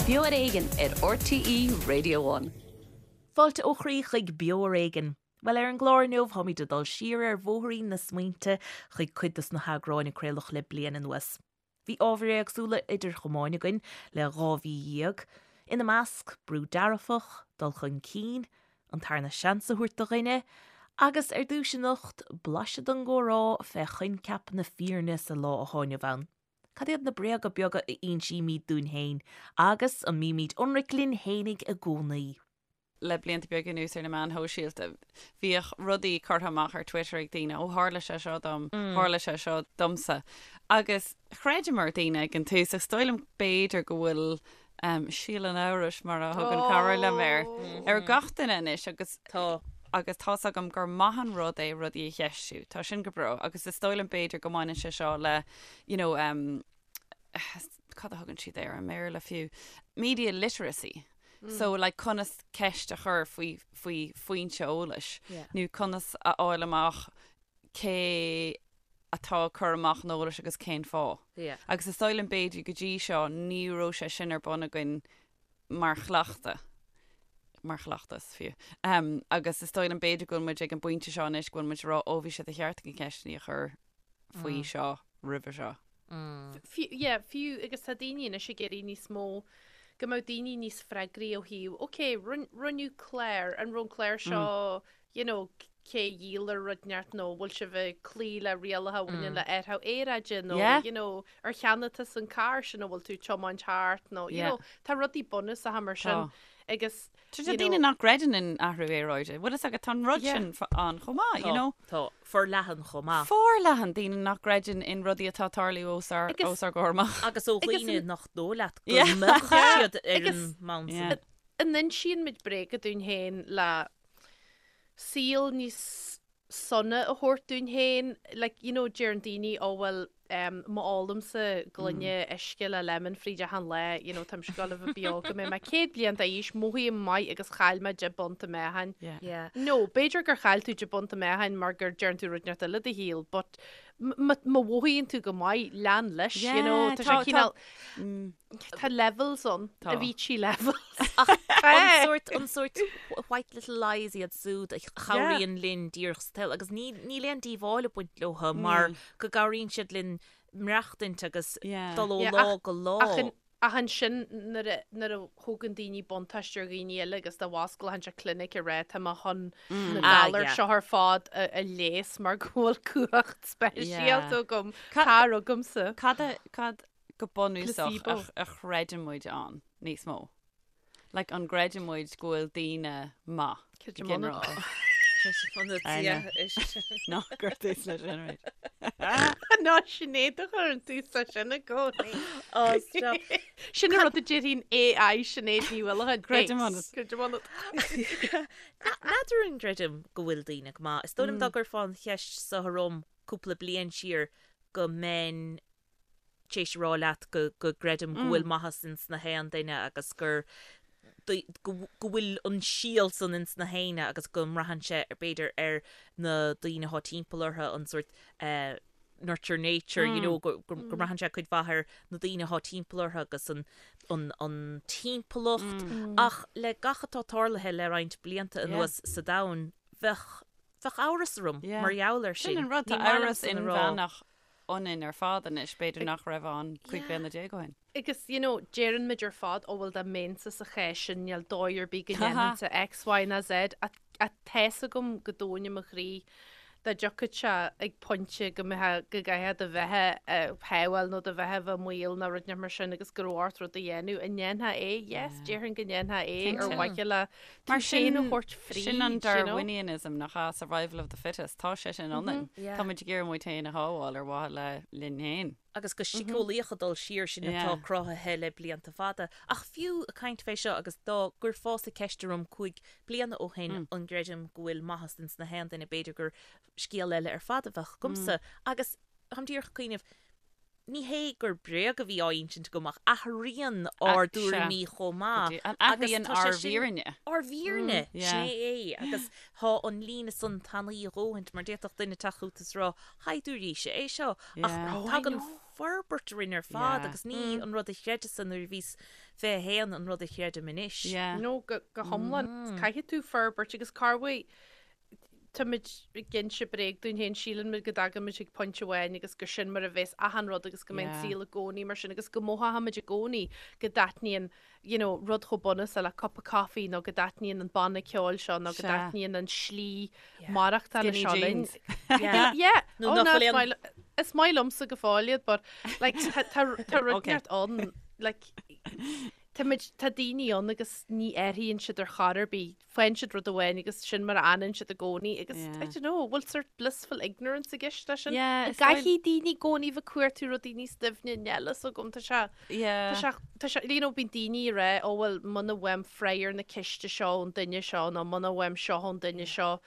Beo ar Éigean ar RTÉ Radio One. Fáilte ó chroí chuig Beo ar Éigean. Bhuel, ar an gclár inniu, táimid ag dul siar ar bhóithrín na smaointe chuig cuid dos na heagráin a craoladh le bliain anuas. Bhí ábhair éagsúla idir chamáin againn le 12 mhí, ina measc, brú dearfach, dul chun cinn, an tarna seans a thabhairt do dhuine, agus ar dtús anocht, blaiseadh den gcomhrá fé choincheap na fírinne sa lá athá inniu ann. Cad iad na bréaga beaga a insímid dúinn féin agus an mbímid ionraic linn fhéinig i gcónaí? Le blianta beaga anuas ar na meáin shóisialta, bhíodh rudaí curtha amach ar Twitter ag daoine, ó tharla sé seo dom, tharla sé seo domsa. Agus chreideamar daoine ag an tús, ach is dóigh liom b'fhéidir go bhfuil síol an amhrais, mar a thugann cara liom air, ar gach duine anois agus Tá. agus tá's agam gur maith an rud é rudaí a cheistiú. Tá sin go breá agus is dóigh liom b'fhéidir go mbaineann sé seo le you know um, cad a thugann siad air i mBéarla fiú? Media literacy. So like conas ceist a chur faoi faoi foinse eolais Yeah. nó conas a fháil amach cé atá ag cur amach an eolais agus cén fáth. Yeah. Agus is dóigh liom b'fhéidir go dtí seo ní raibh sé sin ar bun againn mar chleachtadh, mar chleachtas fiú. Um, agus is dóigh liom b'fhéidir go bhfuil muid ag an bpointe seo anois go bhfuil muid ag rá ó bhí sé de cheart againn ceisteanna a chur faoi seo roimhe seo. Fiú, yeah, fiú agus tá daoine anois ag iarraidh níos mó go mbeadh daoine níos freagraí ó thaobh, ok, rinneadh clár, an raibh an clár seo, you know, cé a dhíol ar rud inteacht nó bhfuil sibh ag cloí le rialacha a bhaineann le athrú aeráide nó, Yeah. you know, ar cheannaigh tusa an carr sin a bhfuil tú ag tiomáint thart nó, you Yeah. know, tá rudaí bunúsacha mar sin Tá. agus, Tá you daoine know, nach gcreideann in athrú aeráide. Bhfuil fhios agat, tá an rud Yeah. sin ann chomh maith, you know. Tá forleathan chomh maith. Forleathan daoine nach gcreideann in rudaí atá ag tarlú os ár Agus- os ár gcomhair amach. Agus ó Agus dhaoine an- nach dóigh leat go Yeah. mbeadh siad ar Agus- an mbonn Yeah. sin. an insíonn muid bréaga dúinn féin le saol níos sona a thabhairt dúinn féin, like, you know, deireann daoine, oh well, em, má ólaimse gloine uisce le lemon fríd achan lá, you know, táimse ag gabháil a bheith beo go mbeidh mé 100 bliain d'aois, mothaím maith agus chaill mé 10 bpunt i meáchan. Yeah. Yeah. No, b'fhéidir gur chaill tú 10 bpunt i meáchan mar gur deireann tú rud inteacht eile i do shaol, but m- má mhothaíonn tú go maith, lean leis, you know, Yeah, tá tá- sé tá- cineál, Tá levels ann, Tá. Avicii levels. Ach an sórt, an sórt white little lies iad súd a chabhraíonn linn díreach sa tsaol agus ní, níl aon díobháil ag baint leo mar go gcabhraíonn siad linn maireachtaint agus Yeah. dul ó Yeah, lá ach- go lá. Ach an, ach ansin nuair a, nuair a thógann daoine buntáiste ar dhaoine eile agus dá bhfosclódh sé clinic ag rá tá mé chun na Ah, galair yeah. seo ar fad a, a leigheas mar go bhfuil cumhacht speisialta Yeah. agam, Ca- tar chugamsa. Cad a, cad go bunúsach Placebo. a chreideann muid ann níos mó. Like an gcreideann muid go bhfuil daoine maith go Creidim ionat. ginearálta. Creidim ionat, I yeah. Ná cuir tús leis sin arís. Ná Sinéad a chuireann tús leis sin i gcónaí. Oh, stop. Sin an rud a déarfainn AI Sinéad Ní Uallacháin. Creidim ionat. Creidim ionat. N'fheadar an gcreidim go bhfuil daoine go maith. Is dóigh liom dá gcuirfeá an cheist seo orm cúpla bliain siar go mbeinn tar éis a rá leat go go gcreidim go bhfuil maitheas ins na haon duine agus gur go go bhfuil an síol san ins na héinne agus go mbraitheann sé b'fhéidir ar na daoine atá timpeall orthu an sórt eh, nurture nature you know go go go mbraitheann sé cuid mhaith ar na daoine atá timpeall orthu agus an an an timpeallacht ach le gach atá tarlaithe le roinnt blianta anuas sa domhan bheadh bheadh amhras orm Yeah. mar gheall air sin. Sin an rud, tá Ní maith amhras liomsa a rá. inmheánach ionainn ar fad anois, b'fhéidir nach raibh ann 15 bliana ó shin. Agus, you know, deireann muid ar fad, ó bhuel dá mbeinnse sa chás sin, níl dóigh ar bith go ndéanfainnse X, Y ná Z, ach tá's agam go domhain i mo chroí dá dtiocfadh sé ag pointe go mbeifeá, go gcaithfeá do bheatha a shábháil nó do bheatha a bheith i mbaol nó rud inteacht mar sin agus go raibh ort rud a dhéanamh, an ndéanfá é? Yes, déarfainn go ndéanfá é ar mhaithe le tú Mar féin a sin, thabhairt fríd, sin an you know. Darwinianism nach ea, survival of the fittest, tá sé sin ionainn. Yeah. Tá muid ag iarraidh muid féin a shábháil ar mhaithe le linn féin. Agus go síceolaíoch ag dul siar sin atá Yeah. cruthaithe le blianta fada. Ach fiú ag caint fé seo agus dá gcuirfeása ceist orm 5 bliana ó shin an gcreidim go bhfuil maitheas ins na haon duine b'fhéidir gur scéal eile ar fad a bheadh agamsa. Agus táim díreach ag cuimhneamh, Ní hé gur bréag a bhí á insint agam ach athraíonn ár dtuairimí chomh maith. An athraíonn ár bhfírinne. Ár bhfírinne, sin é é. Agus tá an líne san tanaí a dhóthaint mar d'fhéadfadh duine teacht chugat is rá, Shaighdiúiríse é seo. Ach tagann forbairt orainn ar fad agus ní an rud a chreideas-sa nuair a bhíos 21 an rud a chreidim anois. Yeah. No, go hiomlán. Caithfidh tú forbairt agus corruair táimid ag inse bréag dúinn féin, síleann muid go dtagann muid chuig pointe amháin agus gur sin mar a bheas achan rud agus go mbeidh an saol i gcónaí mar sin agus go mothóimid i gcónaí go dtaitníonn you know, rud chomh bunúsach le cupa coffee nó go dtaitníonn an banna ceoil seo nó go dtaitníonn an slí maireachtála Skinny seo linn. jeans. Yeah. Yeah. Nó Oh, nach no, bhfuil is aon- maith li- is maith liomsa go fóill iad, but like, tá- tá tá rud Okay. neart ann, like, tá muid- tá daoine ann agus ní athraíonn siad ar chor ar bith. Faigheann siad rud amháin agus sin mar a fhanann siad i gcónaí agus Yeah. I don't know, bhfuil sort blissful ignorance i gceist leis sin? Yeah, is dóigh- Caithfidh daoine i gcónaí bheith ag cuartú rudaí níos doimhne níl a fhios agam, tá sé Yeah. Tá sé, tá sé, you know, bíonn daoine ag rá, ó bhuel, muna bhfaighim freagra ar na ceiste seo ón duine seo nó muna bhfaighim seo ón duine seo,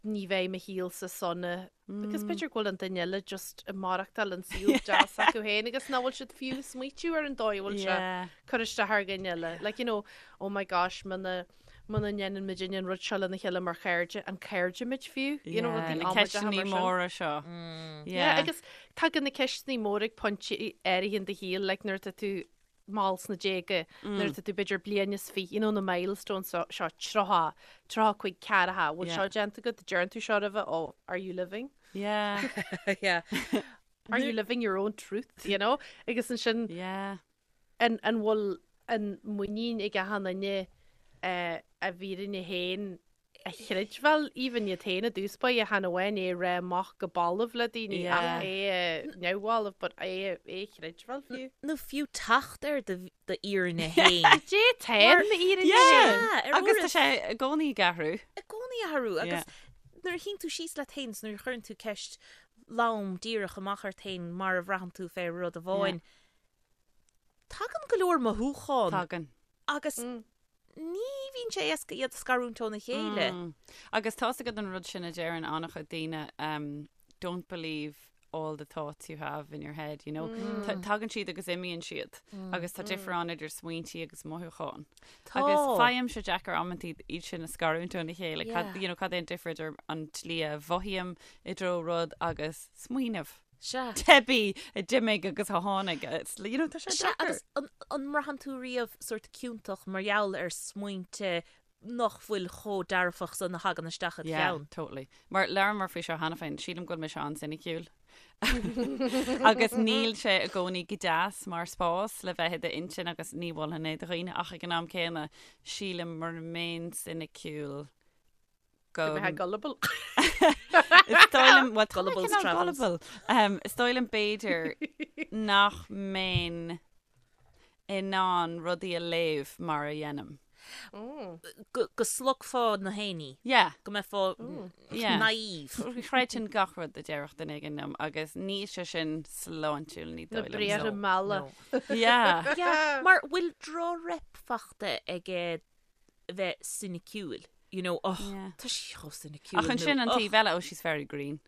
ní bheidh mo shaolsa sona. Because b'fhéidir go bhfuil an duine eile just ag maireachtáil an saol deas acu féin agus nach bhfuil siad fiú ag smaoitiú ar an dóigh a bhfuil sé Yeah. cur isteach ar dhuine eile. Like, you know, oh my gosh, muna muna ndéanann muid an rud seo lena chéile mar chairde, an cairde muid fiú? You know, Yeah, rudaí na amaideacha ceisteanna mar sin. móra seo. Yeah, agus tagann na ceisteanna móra ag pointe áirithe in do shaol, like nuair atá tú mall sna déaga, nuair atá tú b'fhéidir bliain is fi, you know, na milestones seo, seo 30, 35, 40, bhfuil Yeah. seo déanta agat, deireann tú seo roimhe, oh, are you living? Yeah. Yeah. Are you living your own truth, you know? Agus ansin, Yeah. an, an bhfuil an muinín ag achan duine eh, a bhfírinne féin a chreidbheáil, even iad féin i dtús báire, chan amháin é a rá amach go balbh le daoine Yeah. ach é a neamhbhalbh, but é a é a chreidbheáil fiú. Nó fiú teacht ar do d'fhírinne féin. Dé tá m'fhírinne Yeah. Yeah, ar Agus tá uairibh. sé i gcónaí ag athrú. I gcónaí ag athrú agus nuair a shuíonn tú síos leat féin is nuair a chuireann tú ceist lom díreach amach ort féin mar a bhraitheann tú fé rud amháin, tagann go leor mothúchán Tagann. agus ní bhíonn sé éasca iad a scarúint óna chéile. Agus tá's agat an rud sin a deireann an-chuid daoine, um, don't believe all the thoughts you have in your head, you know. Tagann siad agus imíonn siad. Agus tá difear ann idir smaointí agus mothúcháin. Tá. Agus faighim sé deacair amantaí iad sin a scarúint óna chéile. Cad, Yeah. you know, cad é an difear idir an tslí a mhothaím i dtreo rud agus smaoineamh. Sea. Teibí a d'imigh agus a tháinig. It's, you know, tá sé Sea, deacair. agus an, an mbraitheann tú riamh sórt ciontach mar gheall ar smaointe nach bhfuil chomh dearfach san a thagann isteach id Yeah, cheann? totally. Mar labhramar faoi seo cheana féin, sílim go bhfuil mise an-soiniciúil. Agus níl sé i gcónaí go deas mar spás le bheith i d'intinn agus ní mholfainn é do dhaoine ach ag an am céanna sílim mura mbeinn soiniciúil go Go mbeifeá gullible. Is dóigh liom well, tá mé Gullible's cineál travels. gullible. Um, is dóigh liom b'fhéidir nach mbeinn in ann rudaí a léamh mar a dhéanaim. Go, go slogfá na héinní. Yeah. Go mbeifeá Yeah. naive. Chreidfinn gach rud a déarfadh duine éigin liom agus níl sé sin sláintiúil ní Na dóigh liom. briathra No, malla. no. Yeah. Yeah, mar bhfuil droch-rep fachta ag bheith soiniciúil. You know, oh, Yeah. tá sí chomh soiniciúil. Ach ansin nó, an oh, taobh eile, oh, she's very green.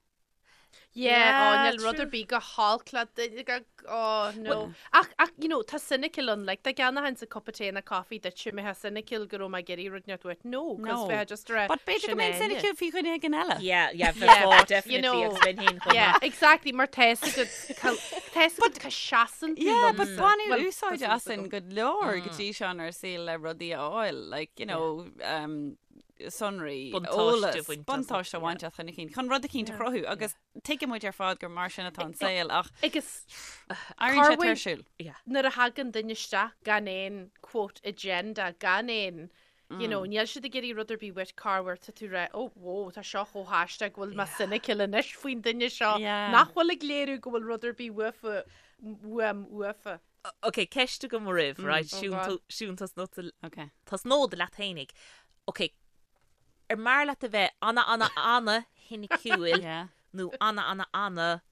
Yeah, Yeah, oh, níl rud true. ar bith go holc le duine go, oh, no. Ach, ach, you know, tá cynical ann, like, dá gceannóchainnse cupa tae nó coffee duit, mbeifeá cynical go raibh mé ag iarraidh rud inteacht uait. No, cos No. bheifeá just ag rá, But b'fhéidir go sin mbeinn Áine. cynical faoi dhuine éigin eile. Yeah, yeah, Yeah, bheifeá, but, you definitely, know, agus bheinn féin chomh Yeah, maith. exactly, mar tá's agat, tá's agat cá seasann tú Yeah, but liomsa. baineadh Well, úsáid tá súil asainn agam. go leor go dtí seo inár saol le rudaí a fháil, like, you know, um, sonraí, Buntáiste eolas, a bhaint as, buntáiste a bhaint as chun cinn, chun rud eicínt a chruthú agus tuigeann muid ar fad gur mar sin atá an saol ach Agus éiríonn sé Corruair- tuirsiúil. nuair a thagann duine isteach gan aon quote agenda, gan aon you know, níl siad ag iarraidh rud ar bith uait corruair tá tú ag rá, oh, whoa, tá seo chomh haisteach go bhfuil mé cynical anois faoin duine seo Yeah. nach bhfuil ag léiriú go bhfuil rud ar bith uafa, uaim uafa. Ok, ceist agam oraibh, right? Oh Siún God. tú- Siún tosnód Okay. tosnód leat fhéinig. Ok, ar mb'fhearr leat a bheith ana ana ana shoiniciúil Yeah. nó ana ana ana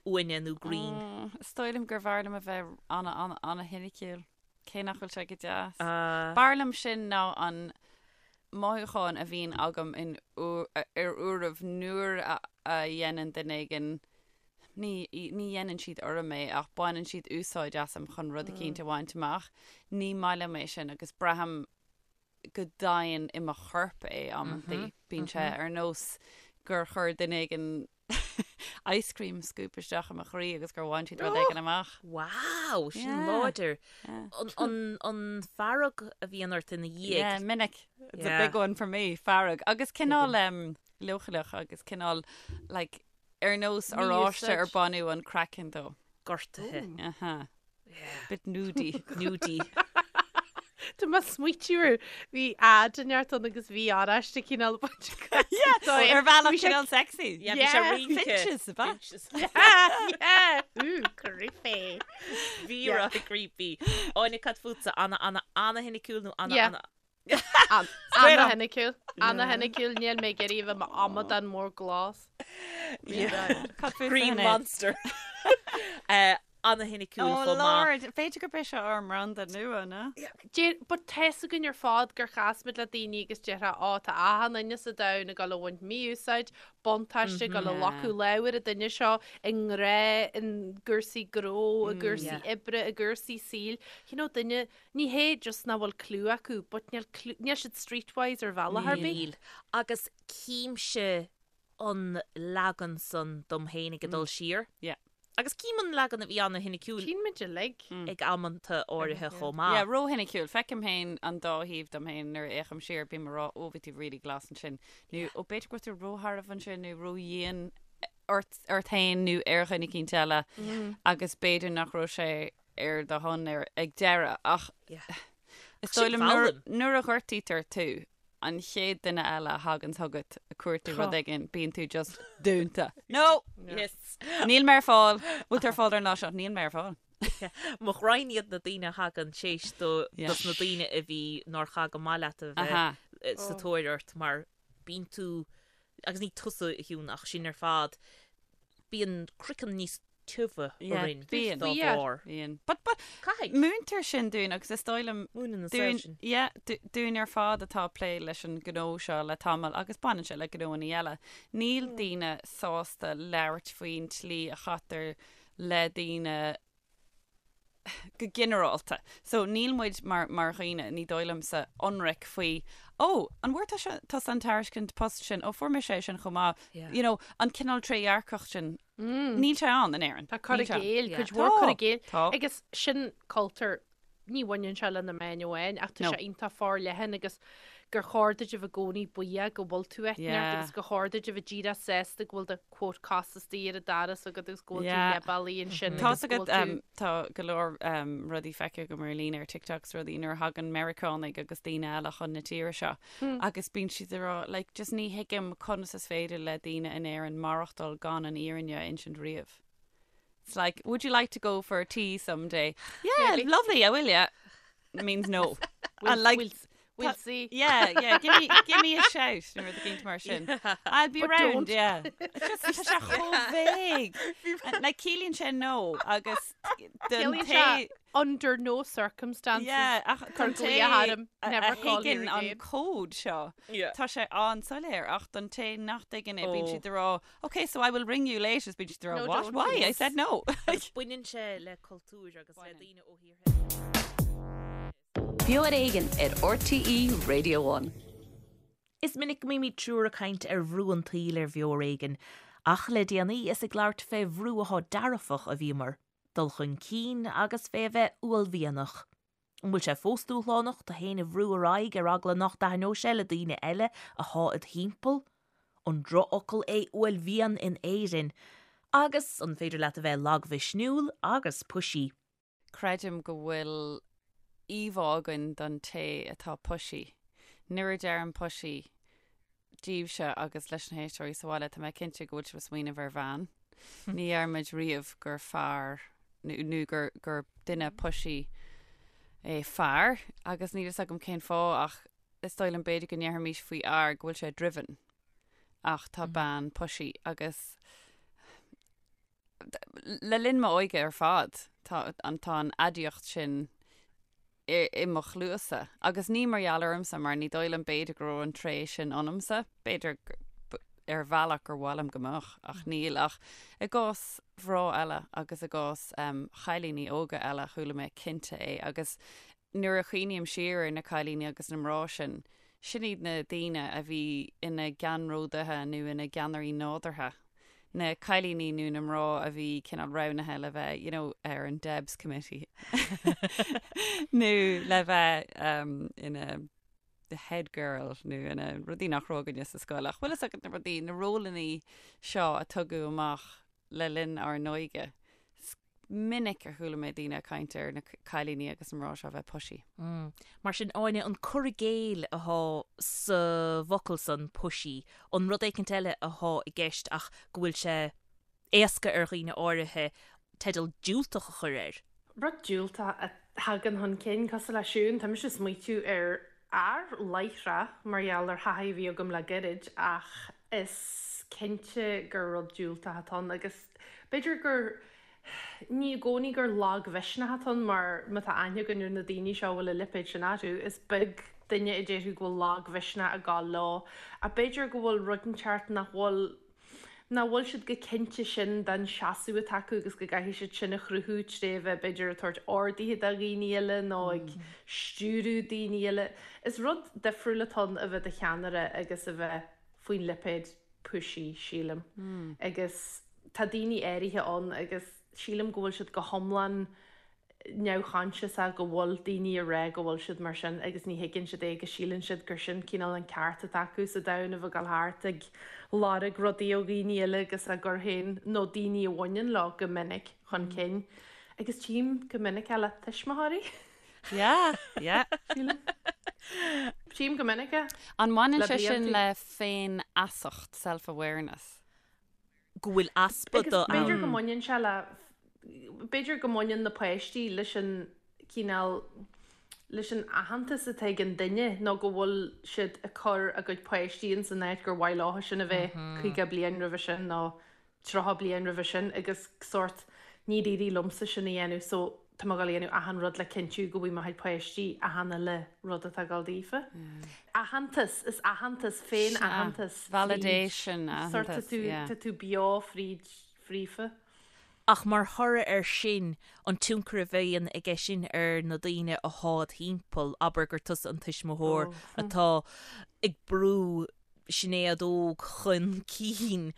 uaine nó green? Is dóigh liom gur bhfearr liom a bheith ana ana ana shoiniciúil. Cé nach bhfuil sé go deas. Uh, B'fhearr liom sin ná an mothúchán a bhíonn agam in ar uairibh nuair a a dhéanann duine éigin ní ní dhéanann siad orm é ach baineann siad úsáid asam chun rud eicínt a bhaint amach. Ní maith liom é sin agus braithim go domhain i mo chorp é amantaí. Bíonn sé ar nós gur chuir duine éigin ice cream scoop isteach i mo chroí agus gur bhain siad rud éigin amach. Wow, sin láidir. An, an fearg a bhíonn ort ina dhiaidh. Yeah, minic. It's a big one for me, fearg. Agus cineál um, leochaileach agus cineál like, ar nós oráiste ar baineadh an craiceann dó. Gortaithe. Aha. Bit nudie. Nudie. Tá mé ag smaoitiú ar bhí ad inteacht ann agus bhí oráiste cineál baint Ar bhealach cineál sexy. Yeah, bhí sé rince. Finches, ab ea? Finches. Yeah, ooh, creepy. Bhí rud creepy. Áine cad fútsa, ana ana ana shoiniciúil nó ana Yeah. ana Ana-shoiniciúil. Ana-shoiniciúil, níl mé ag iarraidh a bheith i m'amadán mór glas. Cad fútsa, Green Sinéad? Monster. Eh, Ana-shoiniciúil Oh chomh maith. Lord, b'fhéidir gurb é seo ár mbranda nua, ná? Deir, but tá's againn ar fad gur chas muid le daoine agus déarfá, ó, tá achan duine sa domhan ag dul a bhaint mí-úsáid, buntáiste, ag dul a ghlacadh lámh ar an duine seo i ngrá, i gcúrsaí gnó, i gcúrsaí oibre, i gcúrsaí saoil. You know, duine, Ní hé just nach bhfuil clue acu, but níl clue, níl siad streetwise ar bhealach ar bith. Níl. Agus címse an leagan san dom féin ag dul siar. Yeah. Agus cím an leagan a bhí ana-shoiniciúil Tchíonn muid uilig. ag amanta áirithe chomh maith. Yeah, ró-shoiniciúil. Feicim féin an dá thaobh dom féin nuair a fhéachaim siar, bím ag rá, ó, bhí tú really glas ansin. Nó, ó, b'fhéidir go raibh tú róshearbh ansin nó ródhian ort, ort féin nó ar dhuine eicínt eile agus b'fhéidir nach raibh sé ar do shon ar ag deireadh ach is dóigh liom nuair, nuair a ghortaítear tú, an chéad duine eile a thagann chugat ag cuartú rud éigin, bíonn tú just dúnta. No! Yes. Níl mé ar fáil. Bhfuil tú ar fáil ar an lá seo? Níl mé ar fáil. Mo ghraidhin iad na daoine a thagann théis do dos na daoine a bhí nár chaith go maith leat a bheith sa tóir ort mar bíonn tú, agus ní tusa a Shiún ach sinn ar fad, bíonn craiceann níos tiubha orainn dá bharr. Bíonn. But, but, Caithfidh. múintear sin dúinn agus is dóigh liom Múineann an saol dúinn, sin. yeah, dúinn ar fad atá ag plé leis an gnó seo le tamall agus baineann sé le gnóanna eile. Níl daoine sásta labhairt faoin tslí a chaitear le daoine go ginearálta. So níl muid mar, mar dhaoine, ní dóigh liomsa, ionraic faoi, ó, an bhfuair tusa, tusa an tairiscint post sin, ó, fuair mise é sin chomh maith. Yeah. You know, an cineál trédhearcacht sin, níl sé ann in Éirinn. Tá cur i Níl sé ann. gcéill, Yeah. cuid mhór cur i Tá, gcéill. tá. Agus sin cultúr, ní bhaineann sé le na meáin amháin, ach tá No. sé iontach forleathan agus gur chóir duit a bheith i gcónaí buíoch go bhfuil tú áit inteacht Yeah. agus gur chóir duit a bheith díreach sásta go bhfuil do quote cos istigh ar an doras agat agus go bhfuil tú Yeah. leath-bealaigh ansin Tá agus go agat bhfuil tú um, tá go leor um, rudaí feicthe agam ar líne ar TikTok is rudaí nuair a thagann Meiriceánaigh agus daoine eile chun na tíre seo agus bíonn siad ag rá like, just ní thuigim conas is féidir le daoine in Éirinn maireachtáil gan an fhírinne a insint riamh. It's like, would you like to go for a tea someday? Yeah, Maybe. lovely, I will, yeah. Means no. We'll, And like, we'll, we'll see. Yeah, yeah, give me, give me a shout nuair a gcéint mar sin. I'll be But round, don't. yeah. It's just tá sé chomh vague. And, Like ciallaíonn sé no agus don Ciallaíonn té sé under no circumstances. Yeah, ach Cur don té glaoch orm, a never a call here thuigeann an again. cód seo, Yeah. tá sé an-soiléir ach don té nach dtuigeann é bíonn Oh. siad ag rá, okay, so I will ring you later, bíonn siad ag rá, No, what? don't. Why? I said no. Agus baineann sé le cultúr agus le daoine ó thíortha. Beo ar Éigean ar RTÉ Radio 1. Is minic go mbímid triúr ag caint ar bhrú an tsaoil ar Bheo ar Éigean, ach le déanaí is ag labhairt fé bhrú athá dearfach a bhíomar, dul chun cinn agus fé a bheith uaillmhianach. An bhfuil sé fós dúshlánach tú fhéin a bhrú ar aghaidh ar eagla nach dtaitneodh sé le daoine eile athá id thimpeall? An drochfhocal é uaillmhian in Éirinn? Agus an féidir leat a bheith lagmhisniúil agus pushy? Creidim go bhfuil íomhá againn don té atá pushy. Nuair a deirim pushy daoibhse agus leis na héisteoirí sa bhaile, tá mé cinnte go bhfuil sibh ag smaoineamh ar bhean. Ní deirimid riamh gur fear nó gur gur duine pushy é fear agus níl fhios agam cén fáth ach is dóigh liom b'fhéidir go ndéarfaimis faoi fhear go bhfuil sé driven ach tá bean pushy agus Le linn m'óige ar fad, tá an tá an aidiacht sin i i mo chluasa. Agus ní mar gheall ormsa, mar ní dóigh liom b'fhéidir go raibh an tréith sin ionamsa. B'fhéidir ar bhealach gur mhaith liom go mbeadh, ach níl. Ach i gcás mhná eile agus i gcás chailíní óga eile, chuala mé cinnte é. Agus nuair a chuimhním siar ar na cailíní agus na mná sin, sin iad na daoine a bhí ina gceannródaithe nó ina gceannairí nádúrtha. Na cailíní nó na mná a bhí cineál roghnaithe le bheith, you know, ar an Debs Committee nó le bheith um, ina the head girl nó ina rudaí nach raibh againne sa scoil. Ach bhfuil fhios agat na rudaí, na rólannaí seo a tugadh amach le linn ár n-óige. Is minic a chuala mé daoine ag caint ar na cailíní agus na mná seo a bheith pushy. Mar sin, Áine, an cur i gcéill athá sa bhfocal san, pushy, an rud éicint eile athá i gceist ach go bhfuil sé éasca ar dhaoine áirithe teideal diúltach a chur air? Rud diúltach a thagann chun cinn, cosúil le Siún, tá mise ag smaoitiú ar fhear láithreach mar gheall ar thaithí a bhí agam le gairid ach is cinnte gur rud diúltach atá ann agus b'fhéidir gur, ní i gcónaí gur lagmhisneach atá ann mar má tá aithne againn ar na daoine seo a bhfuil an lipéad sin orthu, is beag duine a déarfadh go bhfuil lagmhisneach ag gabháil leo ach b'fhéidir go bhfuil rud inteacht nach bhfuil nach bhfuil siad go cinnte sin den seasamh atá acu agus go gcaithfidh siad sin a chruthú tré bheith b'fhéidir ag tabhairt orduithe do dhaoine eile nó ag stiúradh daoine eile. Is rud difriúil atá ann a bheith do cheannaire agus a bheith faoin lipéad pushy, sílim. Agus tá daoine áirithe ann agus sílim go bhfuil siad go hiomlán neamhchoinsiasach go bhfuil daoine ag rá go bhfuil siad mar sin agus ní thuigeann siad é agus síleann siad gur sin cineál an ceart atá acu sa domhan a bheith ag dul thart ag lorg rudaí ó dhaoine eile agus á gcur féin, nó daoine a bhaineann leo go minic, chun cinn. Agus tchím go minic é le tuismitheoirí. Yeah, yeah. Sílim. Tchím go minic é. An mbaineann sé sin le féinfheasacht, self-awareness? go bhfuil easpa de ann. B'fhéidir go mbaineann sé le, b'fhéidir go mbaineann na páistí leis an cineál, leis an aitheantas atá ag an duine nó go bhfuil siad ag cur a gcuid páistí ins an áit gur mhaith leo sin a bheith 50 bliain roimhe sin nó 30 bliain roimhe sin agus sórt níor éirigh liomsa sin a dhéanamh so tá mé ag dul a dhéanamh achan rud le cinntiú go bhfaighidh mo chuid páistí achan uile rud atá ag dul daofa. Aitheantas, is aitheantas, féin-aitheantas. Validation, aitheantas, yeah. Tá tú beo fríd, fríofa. Ach mar thoradh air sin, an tionchar a bhíonn aige sin ar na daoine athá id thimpeall, abair gur tusa an tuismitheoir atá ag brú Sinéad Óg chun cinn.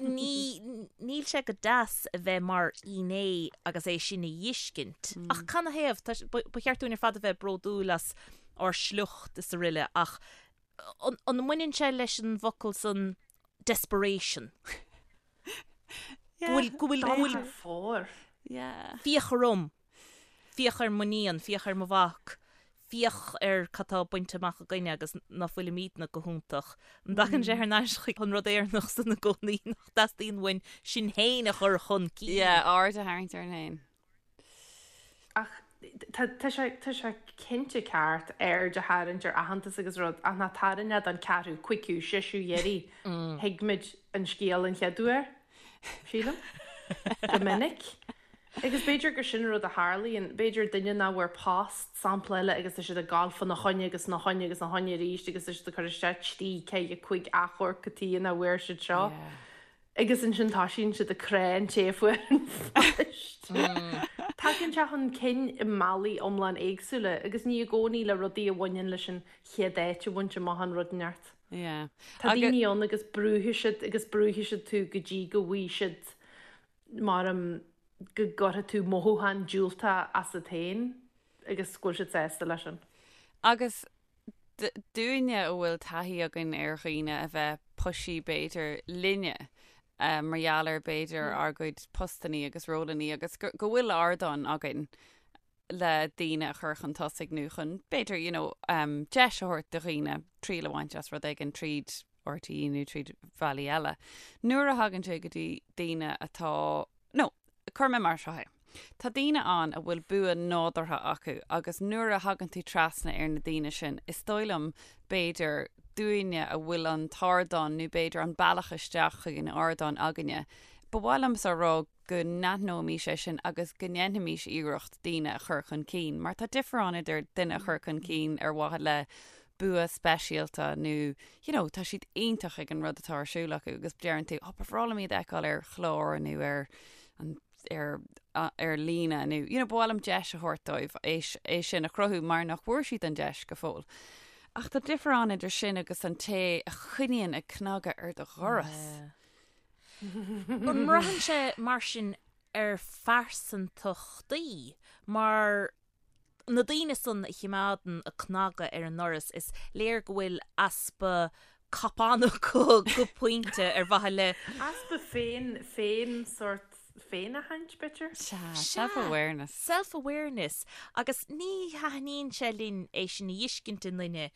Ní, níl sé go deas a bheith mar fhinné agus é sin a dh'fheiscint. Ach canathaobh? Tá, ba, ba cheart dúinn ar fad a bheith bródúil as ár sliocht is aroile ach an, an mbaineann sé leis an bhfocal san desperation? Go bhfuil, go bhfuil, go bhfuil. Dul thar fóir. Yeah. Féach orm. Féach ar m'iníon, féach ar mo mhac, féach ar cad tá bainte amach againne agus ná fuilimídne go hiontach. An dtagann sé thar n-ais chuig an rud Éireannach san i gcónaí nach dteastaíonn uainn sinn féin a chur chun cinn? Yeah, aird a tharraingt orainn féin. Ach tá, tá sé, tá sé cinnte ceart aird a tharraingt ar aitheantas agus rud ach ná tarraing é don ceathrú, cúigiú, seisiú iarraidh. Thuig muid an scéal an chéad uair, sílim. Go minic. Agus b'fhéidir gur sin an rud a tharlaíonn, b'fhéidir duine nach bhfuair post, sampla eile, agus tá siad ag gabháil fána choinne agus na choinne agus na choinne arís agus tá siad ag cur isteach trí, ceithre, cúig achomharc cad chuige nach bhfuair siad seo. Agus ansin toisíonn siad ag crá an té a fuair an phost. Tagann sé chun cinn i mbealaí iomlán éagsúla agus ní i gcónaí le rudaí a bhaineann leis an chéad áit a bhaint amach an rud neart. Tá daoine ann agus brúfaidh siad agus brúfaidh siad tú go dtí go bhfaighidh siad mar go gcuirfidh tú mothúchán diúltach asat féin agus go bhfuil siad sásta leis sin. Agus dúinne a bhfuil taithí againn ar dhaoine a bheith pushy b'fhéidir linne mar gheall ar b'fhéidir ár gcuid postannaí agus rólannaí agus go bhfuil ardán againn le daoine a chur chun tosaigh nó chun b'fhéidir you know deis a thabhairt do dhaoine triail a bhaint as rud éigin tríd RTÉ nó tríd bhealaí eile. Nuair a thagann sé go dtí daoine atá, nó cuirfidh mé mar seo é, tá daoine ann a bhfuil bua nádúrtha acu agus nuair a thagann tú trasna ar na daoine sin, is dóigh liom, b'fhéidir, dúinne a bhfuil an t-ardán nó b'fhéidir an bealach isteach chuig an ardán againne, ba mhaith liomsa a rá go n-aithneoimís é sin agus go ndéanfaimís iarracht daoine a chur chun cinn, mar tá difear ann idir duine a chur chun cinn ar mhaithe le bua speisialta nó you know tá siad iontach ag an rud atá ar siúl acu agus deireann tú oh ba bhreá liom iad a fheiceáil ar chlár nó ar an ar ar líne nó you know ba mhaith liom deis a thabhairt dóibh é é sin a chruthú mar nach bhfuair siad an deis go fóill. Ach tá difear ann idir sin agus an té a choinníonn ag cnagadh ar do dhoras. Yeah. An mbraitheann sé mar sin ar phearsantachtaí mar na daoine san a chimeádann a cnagadh ar an ndoras, is léir go bhfuil easpa cupán acu go pointe ar mhaithe le. Easpa féin, féin sórt féinaithint, b'fhéidir? Sea, self-awareness. Self-awareness. Agus ní thaitníonn sé linn é sin a fheiscint i nduine.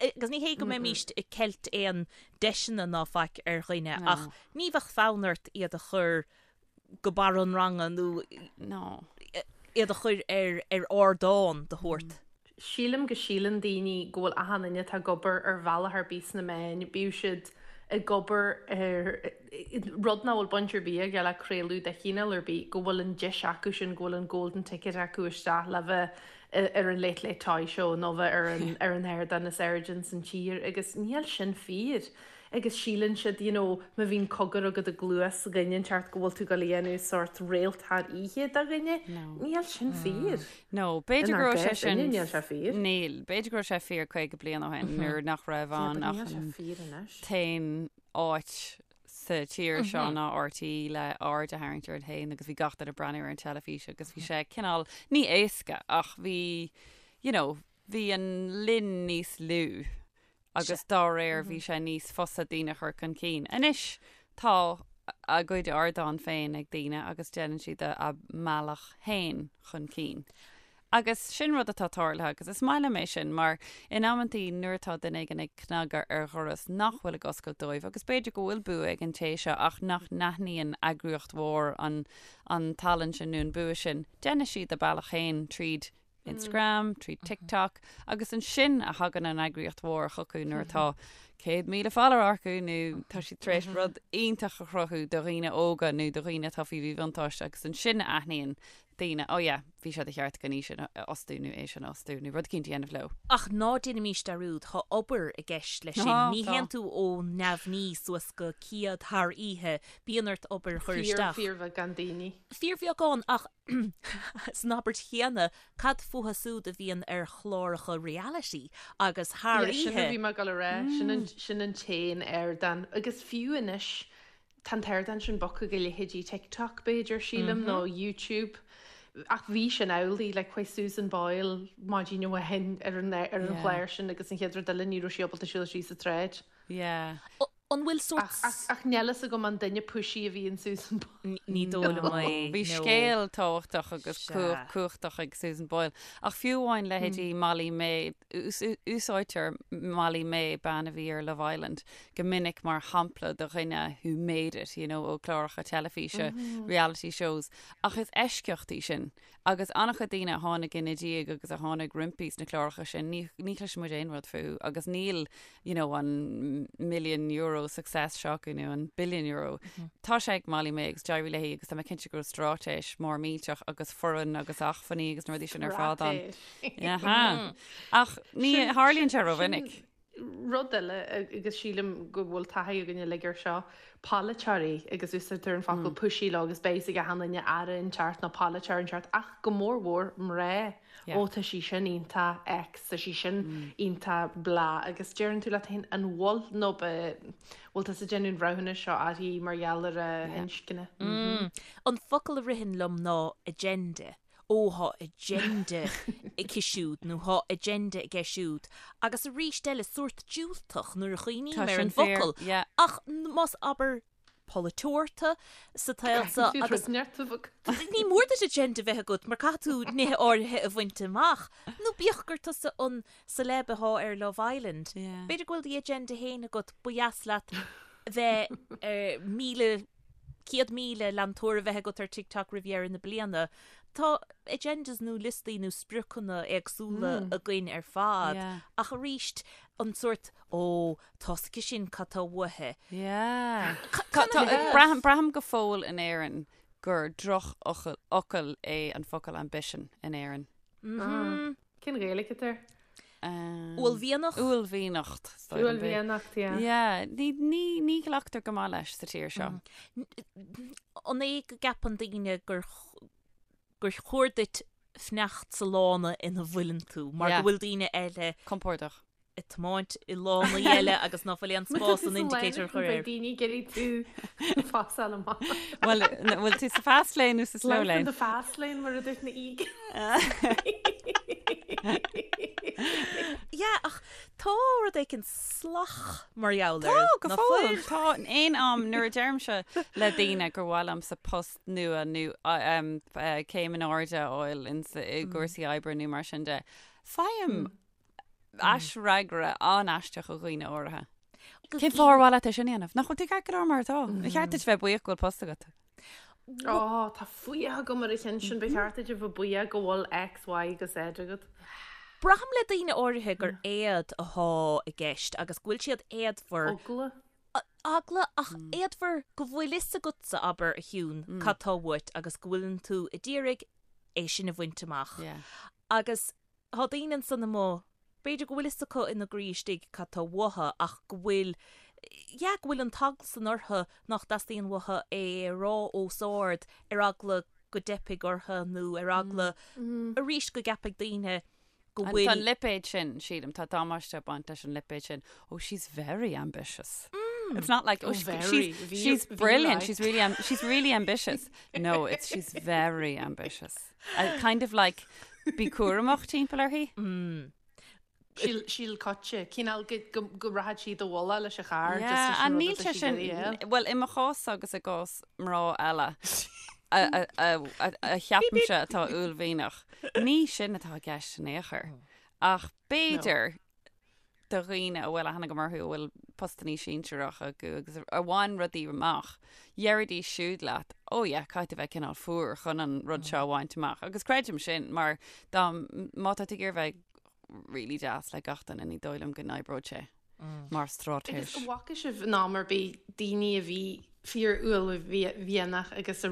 Agus ní hé go mbeimíst ag ceilt aon deiseanna ná faic ar dhuine ach ní bheadh fonn ort iad a chur go barr an ranga nó No. iad a chur ar ar ardán de shórt. Sílim go síleann daoine go bhfuil achan duine atá ag obair ar bhealach ar bith sna meáin, bíodh siad ag obair ar rud nach bhfuil baint ar bith aige le craoladh de chineál ar bith, go bhfuil an deis acu sin, go bhfuil an golden ticket acu isteach le bheith ar an Late Late Toy Show nó bheith ar an ar an ardán is airde ins an tír agus níl sin fíor. Agus síleann siad, you know, má bhíonn cogar agat i gcluas dhuine inteacht go bhfuil tú ag dul a dhéanamh sórt réalt thar oíche de dhuine. Níl sin fíor. No, b'fhéidir go Inár raibh sé gcás sin, inniu, níl sé fíor. Níl, b'fhéidir go raibh sé fíor 50 bliain ó shin nuair nach raibh Yeah, ann but ach níl sé an fíor anois. t-aon áit sa tír seo ná RTÉ le aird a tharraingt ort féin agus bhí gach duine ag breathnú ar an teilifís agus bhí sé cineál, ní éasca ach bhí, you know, bhí an linn níos lú agus dá réir bhí sé níos fusa daoine a chur chun cinn. Anois tá a gcuid ardán féin ag daoine agus déanann siad a mbealach féin chun cinn. Agus sin rud atá tarlaithe agus is maith liom é sin mar in amantaí nuair atá duine éigin ag cnagadh ar dhoras nach bhfuil ag oscailt dóibh agus b'fhéidir go bhfuil bua ag an té seo ach nach n-aithníonn eagraíocht mhór an an tallann sin nó an bua sin, déanfaidh siad a bealach féin tríd Instagram, tríd TikTok agus ansin a thagann an eagraíocht mhór chucu nuair atá 100,000 follower acu nó tá siad tar éis rud iontach a chruthú do dhaoine óga nó do dhaoine atá faoi mhíbhuntáiste agus ansin a aithníonn daoine, oh yeah, bhí sé de cheart againn í sin a fhostú nó é sin a fhostú nó rud eicínt a dhéanamh leo. Ach ná déanaimís dearúd, tá obair i gceist leis sin. Ní théann tú ó neamhní suas go céad thar oíche, bíonn ort obair a chur isteach. Fíor, fíorbheagán daoine. Fíorbheagán ach San abairt chéanna, cad fúthu súd a bhíonn ar chláracha reality agus thar Yeah, sin a oíche? bhí mé ag dul a rá, sin an, sin an t-aon ardán. Agus fiú anois, tá an t-ardán sin bogtha go leithéidí TikTok, b'fhéidir, sílim, nó YouTube. Ach bhí sin amhlaidh, like, chuaigh Susan Boyle maidin amháin ar an, ar an Yeah. chlár sin agus an chéad rud eile ní raibh sí ábalta siúl síos an tsráid. Yeah. An bhfuil sórt. Ach níl fhios agam an duine pushy a bhí in Susan Boyle. Ní dóigh liom é. Bhí scéal tábhachtach agus cumhachtach ag Susan Boyle. Ach fiú amháin leithéidí Molly-Mae, úsáidtear Molly-Mae, bean a bhí ar Love Island, go minic mar shampla de dhuine who made it, you know, ó chláracha teilifíse, reality shows. Ach is eisceacht í sin. Agus an-chuid daoine a tháinig ina diaidh agus a tháinig roimpi sna cláracha sin, ní, ní chloiseann muid aon rud fúthu agus níl, you know, an million euro success seo acu nó an billion euro. Tá sé ag Molly-Mae agus d'éirigh léi agus tá mé cinnte go raibh straitéis mór millteach agus foireann agus acmhainní agus na rudaí sin ar fad ann. Straitéis. Ach ní tharlaíonn sé rómhinic. Rud eile, agus sílim go bhfuil taithí againn uilig air seo, polaiteoirí, agus úsáidtear an focal pushy leo agus beidh a fhios ag achan duine aire inteacht nó polaiteoir inteacht, ach go mór mhór mná. Ó tá sí sin iontach X, tá sí sin iontach blah, agus deireann tú leat féin an bhfuil nó bhfuil tusa ag déanamh an bhreithiúnais seo uirthi mar gheall ar a hinscne? An focal a ritheann liom ná agenda. Ó, thá agenda aici siúd nó thá agenda aige siúd. Agus arís eile, sórt diúltach nuair a chuimhním Tá ar sin an fíor, bhfocal. yeah. Ach más abair polaiteoir tú sa tsaol seo Caithfidh tú agus rud neart a bheith agat. ní mór duit agenda bheith agat mar caithfidh tú nithe áirithe a bhaint amach. Nó bíodh gur tusa an celeb athá ar Love Island. Yeah. B'fhéidir go bhfuil do agenda féin agat, ba dheas leat bheith ar 1,000 100,000 leantóir a bheith agat ar TikTok roimh dheireadh na bliana. Tá agendas nó liostaí nó spriocanna éagsúla againn ar fad Yeah. ach arís an sórt ó tá 's aici sin cad tá uaithi. Yeah. Tá- Tá- Braithim braithim go fóill in Éirinn gur drochfhocal fhocal é an focal ambition in Éirinn. Cén Ghaeilge atá air? Uaillmhianach? Uaillmhianacht. Uaillmhianacht, yeah. Yeah, ní, ní, ní ghlactar go maith leis sa tír seo. An é go gceapann daoine gur, gur chóir duit fanacht sa lána ina bhfuileann tú, mar Yeah. go bhfuil daoine eile Compordach. ag tiomáint i lánaí eile agus ná fuil aon spás an indicator a chur air. Beidh daoine ag iarraidh tú phasáil amach. Bhuel, bhfuil tú sa fast lane nó sa slow Life in lane? the fast lane mar a dúirt na Eagles. Yeah, ach tá rud éicint salach mar gheall air. Tá, go ná fóill. fuil? Tá in aon am nuair a deirimse le daoine gur mhaith liomsa post nua nó céim in airde a fháil i gcúrsaí oibre nó mar sin de, faighim aisfhreagra an-aisteach ó dhaoine áirithe. Cén fáth ar mhaith leat é sin a dhéanamh? Nach bhfuil tú ceart go leor mar atá? Ba cheart duit bheith buíoch go bhfuil post agat. Ó, tá fuath agam ar an cheann sin, ba cheart duit a bheith buíoch go bhfuil X, Y agus Z agat. Braithim le daoine áirithe gur éad athá i gceist agus go bhfuil siad éadmhar. Eagla. Eagla ach éadmhar go bhfuil fhios agatsa, abair, a Shiún, cad tá uait agus go bhfuileann tú a d'iarraidh é sin a bhaint amach. Agus Tá daoine ansan amuigh, b'fhéidir go bhfuil fhios acu ina gcroí istigh cad tá uathu ach go bhfuil, yeah, go bhfuil an t-eagla san orthu nach dteastaíonn uathu é a rá os ard ar eagla go dteipfidh orthu nó ar eagla arís go gceapfaidh daoine go Tá bhfuil. an lipéad sin, sílim, tá damáiste ag baint leis an lipéad sin, oh she's very ambitious. It's not like, oh, Oh, she, very. she's, Bhí- she's bhí brilliant, like. she's really, am- she's really ambitious. No, it's she's very ambitious. Uh, kind of like bí cúramach timpeall uirthi. Síl síl coite, cineál go go go rachadh sí do bhualadh leis an charr just Yeah, leis an and rud níl atá sé sí sin, ag iarraidh a fháil. well, i mo chás agus i gcás mná eile a, a, a, a, a cheapaimse atá uaillmhianach, ní sin atá i gceist in aon chor. Ach b'fhéidir do dhaoine a bhfuil aithne agam orthu a bhfuil postannaí sinsearach acu agus a bhain rudaí amach, deiridís siúd leat, oh yeah, caithfidh tú bheith cineál fuar chun an rud seo a bhaint amach. Agus creidim sin mar dá, má tá tú ag iarraidh bheith really deas le gach duine ní dóigh liom go n-oibreoidh sé mar straitéis. Agus an bhfaca sibh in am ar bith daoine a bhí fíor-uaillmhianach agus a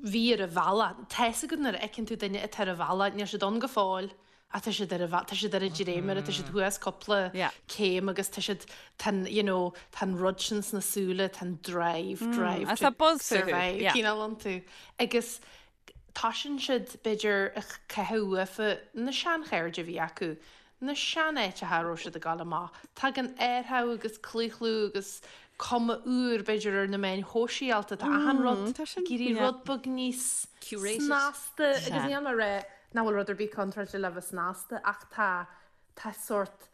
bhí ar a bhealach, tá fhios agat nuair a fheiceann tú duine atá ar a bhealach, níl siad ann go fóill, Ach tá siad ar a, tá siad ar an dréimire, tá siad thuas cúpla céim agus tá siad, tá an, you know, tá an rud sin sna súile, tá an drive, drive Agus tá to buzz fúthu, survive yeah. cineál iontu. Agus toisíonn siad, b'fhéidir, ag caitheamh uafa na seanchairde a bhí acu, na seanáiteacha a raibh siad ag dul amach. Tagann athrú agus claochlú agus cuma úr, b'fhéidir, ar na meáin shóisialta, tá achan rud tá sin, ag éirí yeah. rud beag níos Curated. snasta agus Sea. níl mé ag rá Nach bhfuil rud ar bith contráilte le bheith snasta ach tá, tá sórt,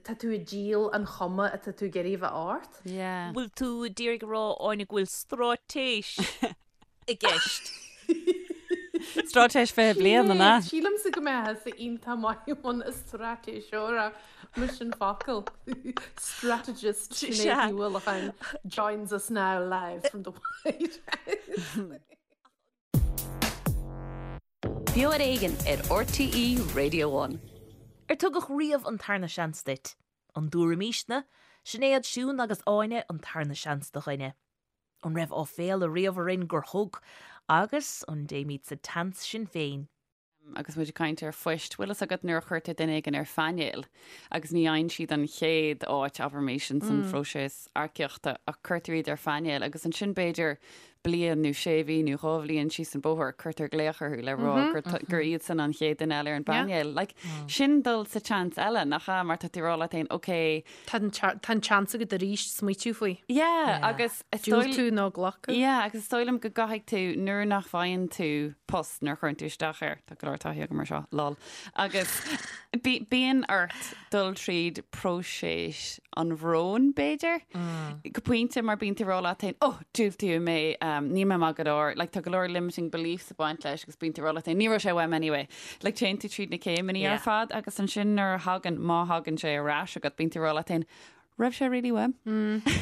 tá tú ag díol an chuma atá tú ag iarraidh a bheith ort. Yeah. Bhfuil tú ag iarraidh a rá, Áine, go bhfuil straitéis i gceist? Straitéis 20 bliain, an ea? Sílimse go mbeifeá iontach maith i mbun straitéiseora, mise an focal. Strategist Sinéad Ní Uallacháin joins us now live from the White House. Beo ar Éigean ar RTÉ Radio One. Ar tugadh riamh an tarna seans duit? An dtabharfaimísne, Sinéad, Siún agus Áine an tarna seans do dhuine? An raibh áiféala riamh orainn gur thug? Agus an dtéimid sa tseans sinn féin? Agus muid ag caint ar phoist, bhfuil fhios agat nuair a chuirtear duine éigin ar phainéal agus ní fhaigheann siad an chéad áit, abraimis, ins an phróiseas earcaíochta ach cuirtear iad ar phainéal agus ansin b'fhéidir bliain nó sé mhí nó 2 bhliain síos an bóthar, cuirtear glaoch orthu le rá gur gur iadsan an chéad duine eile ar an bpainéal. Like, sin dul sa tseans eile, nach ea? Mar tá tú ag rá leat féin, ok. Tá an tá an tseans agat arís smaoitiú faoi. Yeah, agus is dóigh Diúltú nó glacadh. Yeah, agus is dóigh liom go gcaithfidh tú, nuair nach bhfaigheann tú post, nuair a chuireann tú isteach air, tá go leor taithí agam ar seo, lol, agus bíonn ort dul tríd próiseas an bhróin, b'fhéidir, go pointe mar bíonn tú ag rá leat féin, oh, diúltaíodh mé, níl mé maith go leor, like, tá go leor limiting beliefs ag baint leis agus bíonn tú ag rá leat féin, ní raibh sé uaim anyway. Like, téann tú tríd na céimeanna ar fad agus ansin nuair a thagann, má thagann sé ar ais agat, bíonn tú ag rá leat féin, raibh sé really uaim?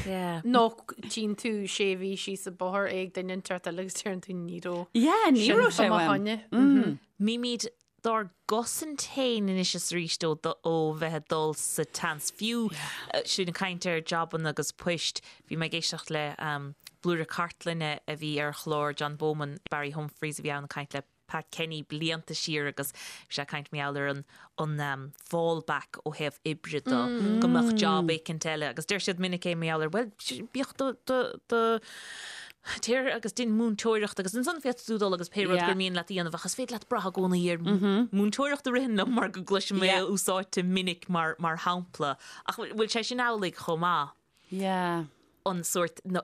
Yeah. Nó tchíonn tú sé mhí síos an bóthar é ag duine inteacht eile agus deireann tú ní raibh. Yeah, ní raibh sé fá mo uaim. choinne. Bímid dár gcosaint féin anois is arís ó ó bheith ag dul sa tseans. Fiú sinn ag caint ar jabanna agus poist, bhí mé ag éisteacht le blúire cartlainne a bhí ar chlár John Bowman, Barry Humphries a bhí ann ag caint le Pat Kenny blianta siar agus bhí sé ag caint mar gheall ar an an fallback ó thaobh oibre de, go mbeadh job éicint eile agus deir siad minic é mar gheall ar bhuel bíodh do do do. Téir agus dein múinteoireacht agus ansan féadfaidh tú dul agus pé rud gur mian leat a dhéanamh ach is féidir leat brath i gcónaí ar múinteoireacht a ritheann liom mar go gcloisim é úsáidte minic mar mar shampla. Ach bhfuil sé sin amhlaidh chomh maith? Yeah. An sórt no,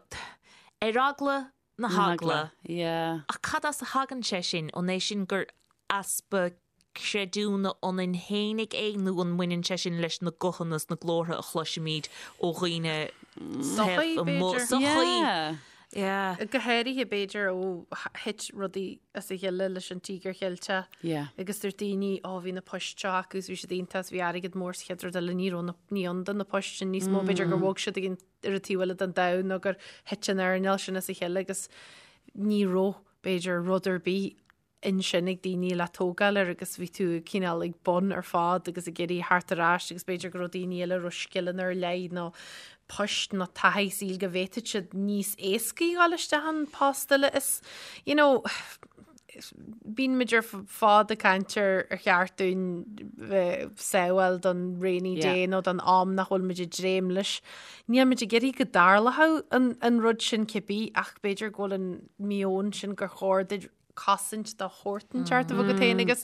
ar eagla na heagla. Yeah. Ach cad as a thagann sé sin? An é sin gur easpa creidiúna ionainn fhéinig é nó an mbaineann sé sin leis na guthanna is na glórtha a chloisimid ó dhaoine Sochaí, taobh amuigh? b'fhéidir. Sochaí. Yeah. Yeah. Go háirithe, b'fhéidir, ó thit rudaí as a chéile leis an Tíogar Cheilteach Yeah. agus dúirt daoine, ó bhí na poist seo acu is bhí siad iontach is bhí airgead mór sa chéad rud eile, ní raibh na, ní ann do na poist sin níos mó, b'fhéidir gur bhog siad ag an, ar an taobh eile den domhan nó gur thit an earnáil sin as a chéile agus ní raibh, b'fhéidir, rud ar bith ansin ag daoine le tógáil air agus bhí tú cineál ag bun ar fad agus ag iarraidh theacht ar ais agus b'fhéidir go raibh daoine eile a raibh scileanna ar leith nó poist nó taithí saoil go bhféadfadh siad níos éascaí dhul isteach an post eile is you know bíonn muid ar fad ag caint ar ar cheart dúinn bheith sábháil don rainy day nó don am nach bhfuil muid ag dréim leis. Níl muid ag iarraidh go dtarlódh an, an rud sin cibé ach b'fhéidir go bhfuil an meon sin gur chóir duit cosaint de shórt inteacht a bheith agat féin agus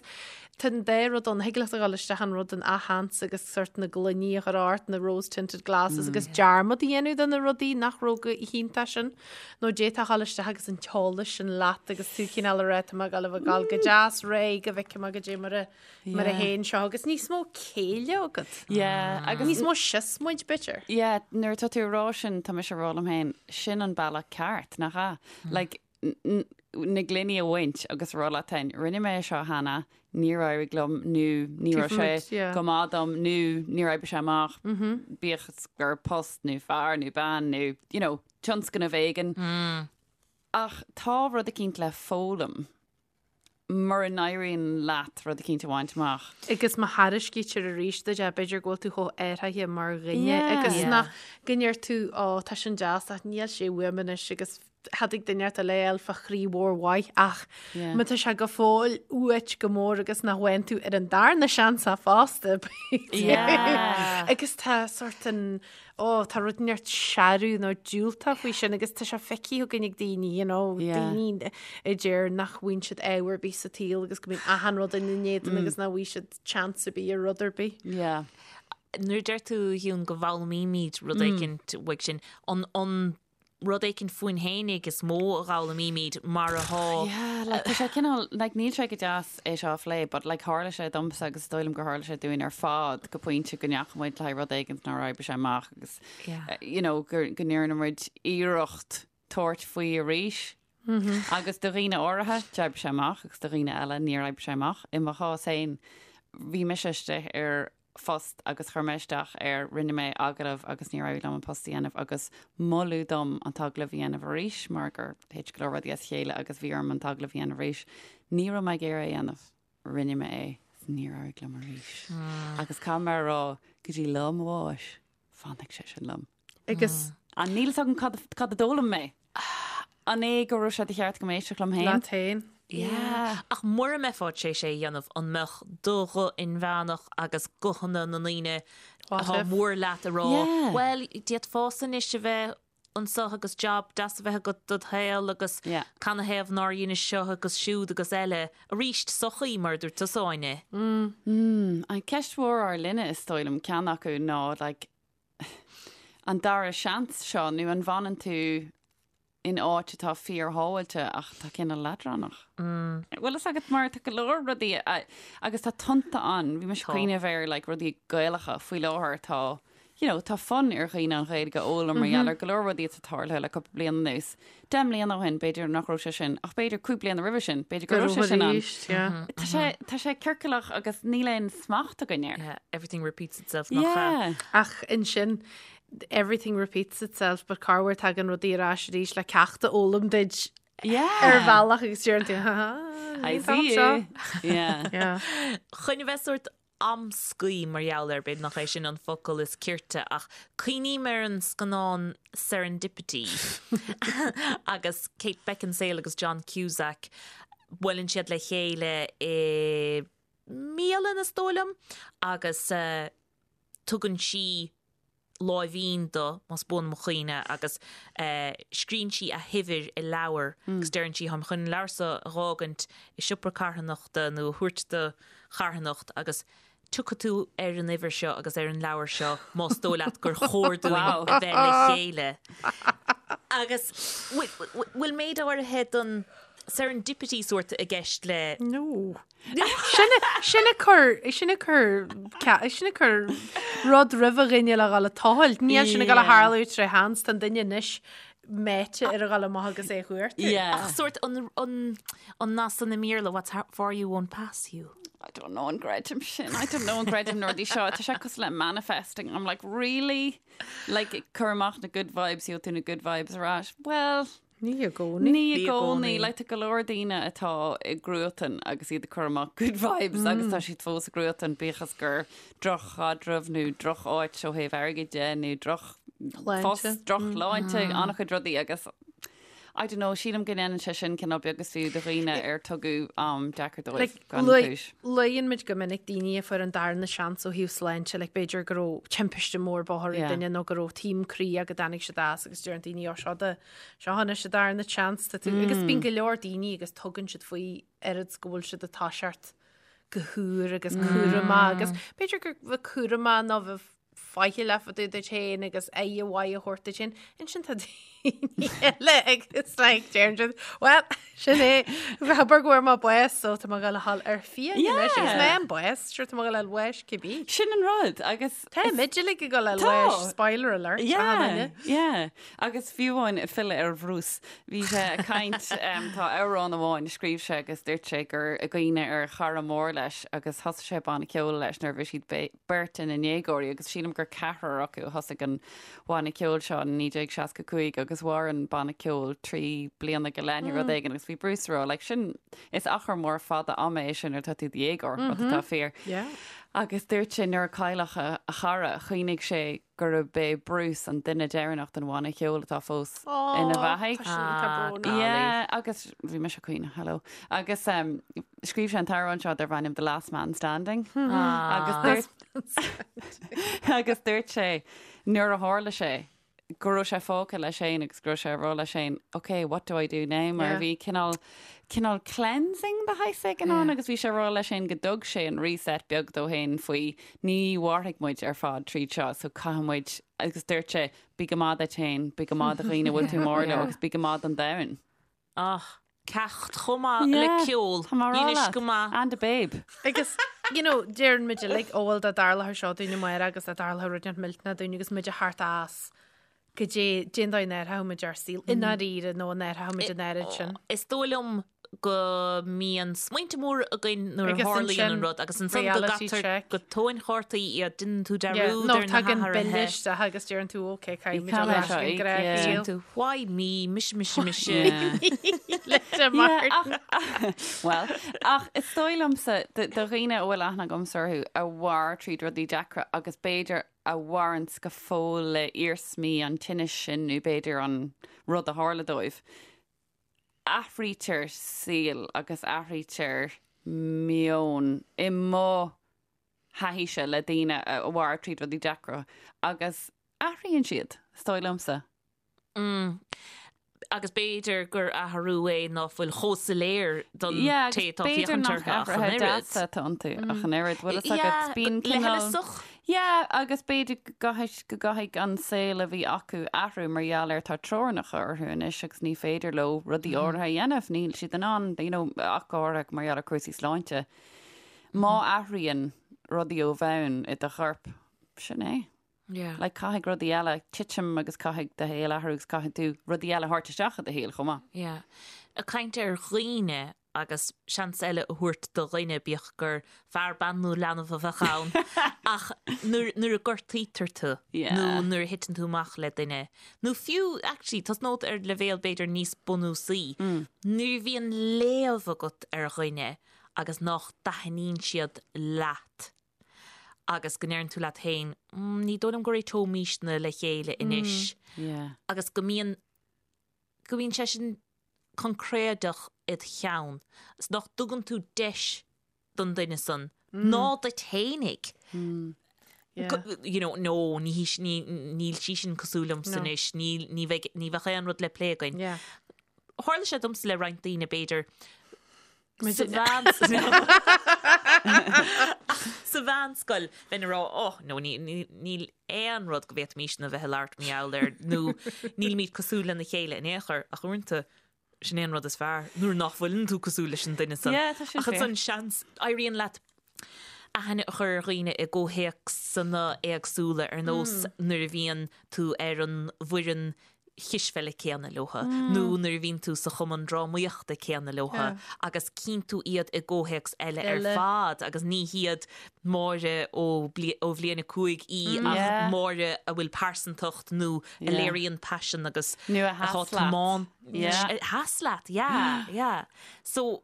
tá an dá rud ann, thig leat a dhul isteach an rud an athsheans agus sort na gloiní a chur ort, na rose tinted glasses agus dearmad a dhéanamh de na rudaí nach raibh go hiontach sin nó d'fhéadfá a dhul isteach agus an t-eolas sin leat agus tú cineál a rá tá mé ag dul a bheith ag dul go deas réidh go bhfeicfidh mé goidé mar a mar a théann seo agus níos mó céille agat. Yeah, agus níos mó siosmaid b'fhéidir. Yeah, nuair atá tú ag rá sin tá mise ag rá liom féin, sin an bealach ceart, nach ea? Like, na gloiní a bhaint agus a rá leat féin, rinne mé é seo cheana, níor éirigh liom nó ní raibh sé go maith dom nó níor oibrigh sé amach, bíodh is gur post nó fear nó bean nó, you know, tionscnamh éigin. Ach tá rud eicínt le foghlaim. mura n-éiríonn leat rud eicínt a bhaint amach. Agus má thairiscítear arís duit é, b'fhéidir go bhfuil tú chomh athraithe mar dhuine agus nach go ndeir tú ó tá sin deas ach níl sé uaim anois agus thiocfadh duine inteacht eile a fháil fá chroí mhór mhaith ach má tá sé go fóill uait go mór agus nach bhfaigheann tú ar an darna seans é fosta b'fhéidir. Agus tá sort an Ó, tá rud inteacht searbh nó diúltach faoi sin agus tá sé feicthe againn ag daoine, you know, daoine a deir nach bhfaigheann siad ádh ar bith sa tsaol agus go mbíonn achan rud ina n-éadan agus nach bhfaighidh siad chance ar bith ar rud ar bith. Yeah. Nuair a deir tú, a Shiún, go bhfoghlaimímid rud éicint uaidh sin, an, an rud éicint fúinn fhéinig is mó a dh'fhoghlaimímid mar atá. Yeah, like tá sé cineál, like níl sé go deas é seo a phlé, but like tharla sé domsa agus is dóigh liom gur tharla sé dúinn ar fad go pointe go ndeachaigh muid le haghaidh rud éigint nár oibrigh sé amach agus Yeah. you know, gur, go ndearna muid iarracht tabhairt faoi arís. Agus do dhaoine áirithe, d'oibrigh sé amach agus do dhaoine eile níor oibrigh sé amach. I mo chás féin, bhí mise istigh ar phost agus chuir mé isteach air, rinne mé agallamh agus níor éirigh liom an post a dhéanamh agus moladh dom an t-agallamh a dhéanamh arís mar gur thit go leor rudaí as a chéile agus bhí orm an t-agallamh a dhéanamh arís. Ní raibh mé ag iarraidh é a dhéanamh. Rinne mé é is níor éirigh liom arís. Agus caithfidh mé a rá go dtí lá mo bháis, fanfaidh sé sin liom. Agus. An níl fhios agam cad cad a d'fhoghlaim mé. An é go raibh sé de cheart go éisteacht liom féin? Leat féin. Yeah. Ach mura mbeifeá tar éis é a dhéanamh, an mbeadh do ghuth inmheánach agus guthanna na ndaoine atá mór leat ag rá, bhuel, d'fhéadfása anois a bheith anseo agus job deas a bheith agat dod shaol agus canathaobh nár dheinis seo agus siúd agus eile. Arís, sochaí, mar a dúirt tusa, Áine. An ceist mhór ár linne, is dóigh liom, ceann acu ná, like, an dara seans seo nó an bhfanann tú in áit atá fíorshábháilte ach atá cineál leadránach? Bhfuil fhios agat mar tá go leor rudaí agus tá tonnta ann, bhí mise ag cuimhneamh ar like rudaí Gaelacha faoi láthair tá you know tá fonn ar dhaoine an Ghaeilge a fhoghlaim mar gheall ar go leor rudaí atá tarlaithe le cúpla bliain anuas. 10 mbliana ó shin b'fhéidir nach raibh sé sin ach b'fhéidir 5 bliana roimhe sin b'fhéidir go raibh sé sin ann. Tá sé tá sé ciorcalach agus níl aon smacht againn air. Yeah, everything repeats itself nach ea? Yeah. Ach ansin everything repeats itself but corruair tagann rudaí ar ais arís le ceacht a fhoghlaim duit Yeah. ar bhealach agus deireann tú ha ha I níl see seo. you. Yeah. Yeah. Chun a bheith sórt amscaí mar gheall air, b'fhéidir nach é sin an focal is cirte, ach cuimhním ar an scannán Serendipity agus Kate Beckinsale agus John Cusack, buaileann siad le chéile i mbialann, is dóigh liom, agus tugann sí. láimhín do, más buan mo chuimhne, agus scríonn sí a huimhir i leabhar agus deireann sí, táim chun an leabhar seo a dh'fhágaint i siopa carthanachta nó a thabhairt do charthanacht agus tiocfaidh tú ar an uimhir seo agus ar an leabhar seo más dóigh leat gur chóir dúinn a bheith le chéile. Agus bhfuil méid áirithe den serendipity sórt i gceist le. No. Sin ag cur, sin ag cur, sin ag cur rud roimh a dhuine le dhul ag tochailt. Níl sin ag dul a tharlú tré sheans, tá an duine anois meáite ar a dhul amach agus é a chuartú. Ach sórt an, an, an nath san i mBéarla, what's for you won't pass you. I don't know an gcreidim sin. I don't know an gcreidim na rudaí seo. Tá sé cosúil le manifesting. I'm like, really? Like, cuir amach na good vibes, gheobhaidh tú na good vibes ar ais. Well, Ní i gcónaí. Ní i gcónaí. Like, tá go leor daoine atá i gcruatan agus iad ag cur amach good vibes agus tá siad fós i gcruatan bíodh is gur droch-chaidreamh nó droch-áit ó thaobh airgid de nó droch-phost, droch-shláinte, an-chuid rudaí agus I don't know, sílim go ndéanann sé sin cineál beag is fiú do dhaoine ar tugadh am deacair dóibh gan chúis. Luann muid go minic daoine a fuair an darna seans ó thaobh sláinte, like b'fhéidir go raibh timpiste mór bóthair ag duine nó go raibh taom croí go dtáinig siad as agus deireann daoine ó seo do Seo anois an darna seans tá tú agus bíonn go leor daoine agus tugann siad faoi oiread 's go bhfuil siad ag toiseacht go húr agus cúramach agus b'fhéidir gur bheith cúramach nó bheith faichilleach fá dtaobh duit féin agus aire mhaith a thabhairt duit féin. Ansin tá daoine eile agus like deireann siad well sin é abair go bhfuair mé bás so tá mé ag dul a dhul ar fiaigh anois agus mé an bás sure tá mé ag dul a fháil bháis cibé. Sin an rud agus Tá muid uilig ag dul a fháil bháis spoiler alert Yeah, yeah. Agus fiú amháin ag filleadh ar Bhruce, bhí sé ag caint, tá amhrán amháin a scríobh sé agus dúirt sé gur i gcuimhne ar chara mór leis agus thosaigh sé banna ceoil leis nuair a bhí siad beirt ina ndéagóirí agus sílim gur ceathrar acu a thosaigh an banna ceoil seo in 1965 agus mhair an banna ceoil 3 bliana go leith nó rud éigin agus bhí Bruce ag rá like sin is achar mór fada ama é sin nuair atá tú i do dhéagóir, rud atá fíor. Agus dúirt sé nuair a cailleadh a chara, chuimhnigh sé gurb é Bruce an duine deireanach den bhanna ceoil atá fós ina bheathaidh. Tá sin brónach. Yeah, agus bhí mise ag caoineadh, hello. Agus um, scríobh sé an t-amhrán seo darb ainm The Last Man Standing. Agus dúirt agus dúirt sé nuair a tharla sé go raibh sé fágtha leis féin agus go raibh sé ag rá leis féin, ok, what do I do now? Mar bhí cineál, cineál cleansing de shaghas éigin ann agus bhí sé ag rá leis féin go dtug sé an reset beag dó féin faoi ní mhairfidh muid ar fad tríd seo so caithfidh muid, agus dúirt sé, bí go maith duit féin, bí go maith do dhaoine a bhfuil tú mór leo agus bí go maith don domhan. Ach, ceacht chomh maith le ceol. Tá mé ag rá Dheinis leat. go maith. And a babe. Agus, you know, deireann muid uilig, ó bhuel dá dtarlódh seo dúinn amárach agus dá dtarlódh rud inteacht millteanach dúinn agus muid ag theacht as goidé, cén dóigh a n-athródh muid ár saol i ndáiríre nó an athródh muid an oiread sin. Is dóigh liom go mbíonn smaointe móra againn nuair a Agus tharlaíonn ansin an rud agus ansan go reality gcaitear check. go tóin chártaí iad, déanann tú Yeah, dearúd nó ar na tagann bille hathruithe. isteach agus deireann tú ok, caithfidh muid Caithfidh dul ar ais seo go íoc, gnách yeah. saol. Tú, why me, mise, mise, mise. Yeah. Linda Martin. Yeah, ach, well, ach is dóigh liomsa do do dhaoine a bhfuil aithne agamsa orthu a mhair tríd rudaí deacra agus b'fhéidir a mhaireanns go fóill le iarsmaí an tinnis sin nó b'fhéidir an rud a tharla dóibh. Athraítear saol agus athraítear meon i mo thaithíse le daoine a mhair tríd rudaí deacra agus athraíonn siad, is dóigh liomsa. Mm. Agus b'fhéidir gur athrú é ná fuil chomh soiléir don Yeah, té agus atá b'fhéidir féachaint nach orthu ach an athruithe oiread. deasa atá iontu ach an oiread. Bhfuil fhios agat, Yeah, bíonn cineál. leithleasach. Yeah, agus b'fhéidir go gcaithfidh, go gcaithfidh an saol a bhí acu athrú mar gheall ar tá teorainneacha orthu anois agus ní féidir leo rudaí áirithe a dhéanamh, níl siad in ann, you know, ach go háirithe mar gheall ar cúrsaí sláinte. Má athraíonn rudaí ó bhonn i do chorp, sin é. Yeah. Like caithfidh rudaí eile titim agus caithfidh do shaol athrú agus caithfidh tú rudaí eile a thabhairt isteach i do shaol chomh maith. Yeah. Ag caint ar dhaoine agus seans eile a thabhairt do dhuine, bíodh gur fear, bean nó leanbh a bheadh ann, ach nuair, nuair a gortaítear tú Yeah. nó nuair a thiteann tú amach le duine, nó fiú, actually, tosnód ar leibhéal b'fhéidir níos bunúsaí, nuair a bhíonn léamh agat ar dhuine agus nach dtaitníonn siad leat agus go ndeireann tú leat féin, mm, ní dóigh liom go réiteoimísne le chéile anois Yeah. agus go mbíonn, go mbíonn sé sin coincréideach id cheann is nach dtugann tú deis don duine san ná duit fhéinig. Yeah. You know, no, ní hí ní níl sí sin cosúil liomsa anois, níl ní bheidh ní bheadh aon rud le plé againn. Yeah. Tharla sé domsa le roinnt daoine b'fhéidir sa sa mheánscoil bheinn ag rá oh no ní níl aon rud go bhféadfaimisne a bheith ag labhairt mar gheall air nó nílimid cosúil lena chéile in aon chor ach uaireanta sin é an rud is fearr nuair nach bhfuileann tú cosúil leis an duine san. Yeah, tá sin Ach ansan seans éiríonn leat aithne a chur ar dhaoine i gcomhthéacsanna éagsúla ar nós nuair a bhíonn tú ar an bhfoireann chispheile céanna leotha nó nuair a bhíonn tú sa chumann drámaíochta céanna leotha agus cíonn tú iad i gcomhthéacs eile ar fad agus ní hiad Máire ó bhliain 5 í ach Máire a bhfuil pearsantacht nó a léiríonn paisean agus Nó a sheas leat. A sheas leat, yeah, yeah. So.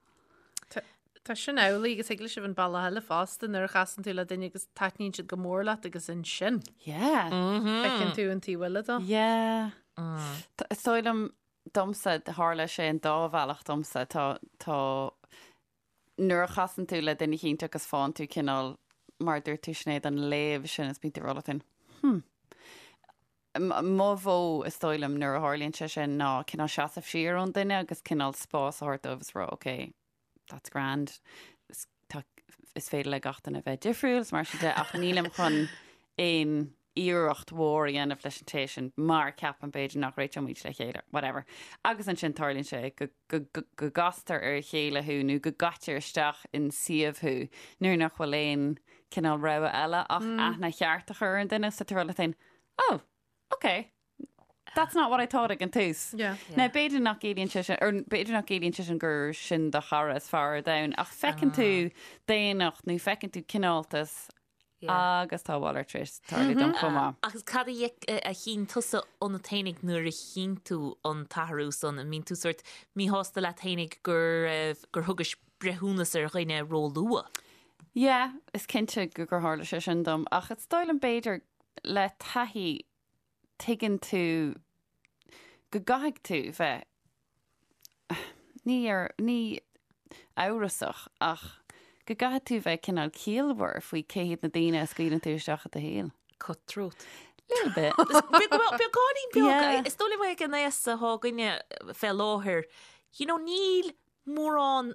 Tá sin amhlaidh agus thig leis a bheith an bealach eile fosta nuair a chasann tú le duine agus taitníonn siad go mór leat agus ansin. Yeah. Feiceann tú an taobh eile dó. Yeah. Is dóigh liom domsa, tharla sé an dá bhealach domsa. Tá, tá, nuair a chasann tú le duine eicínt agus faigheann tú cineál, mar a dúirt tú Sinéad, an léamh sin is bíonn tú ag rá leat féin, hmm. Mo mhodh, is dóigh liom, nuair a tharlaíonn sé sin ná cineál seasamh siar ón duine agus cineál spás a thabhairt dóibh is rá, ok, that's grand, is, tá, is féidir le gach duine bheith difriúil is mar sin de ach nílim chun aon iarracht mhór a dhéanamh leis an té sin mar ceapaim b'fhéidir nach réiteoimid le chéile, whatever. Agus ansin tarlaíonn sé go, go, go, go gcastar ar a chéile thú nó go gcaitear isteach in suíomh thú nuair nach bhfuil aon cineál rogha eile ach aithne cheart a chur ar an duine so tá tú ag rá leat féin, oh, ok, that's not what I thought ag an tús. Yeah. Now, b'fhéidir nach gciallaíonn sé sin, or b'fhéidir nach gciallaíonn sé sin gur sin do chara is fearr ar domhan, ach feiceann tú daonnacht nó feiceann tú cineáltas agus tá a mhalairt tar éis tarlú dom chomh maith. Agus cad a a chinn tusa ionat fhéinig nuair a chinn tú an t-athrú san? An mbíonn tú sórt míshásta leat fhéinig gur gur thugais breithiúnas ar dhuine ró-luath? Yeah, is cinnte gur tharla sé sin dom, ach is dóigh liom b'fhéidir le taithí tuigeann tú go gcaithfidh tú bheith, ní ar, ní amhrasach ach go gcaithfidh tú bheith cineál ciallmhar faoi cé hiad na daoine a scaoileann tú isteach i do shaol. Cutthroat. Little bit. Beagáinín beag. Is dóigh liom ag an aos atá againne fé láthair, you know, níl mórán,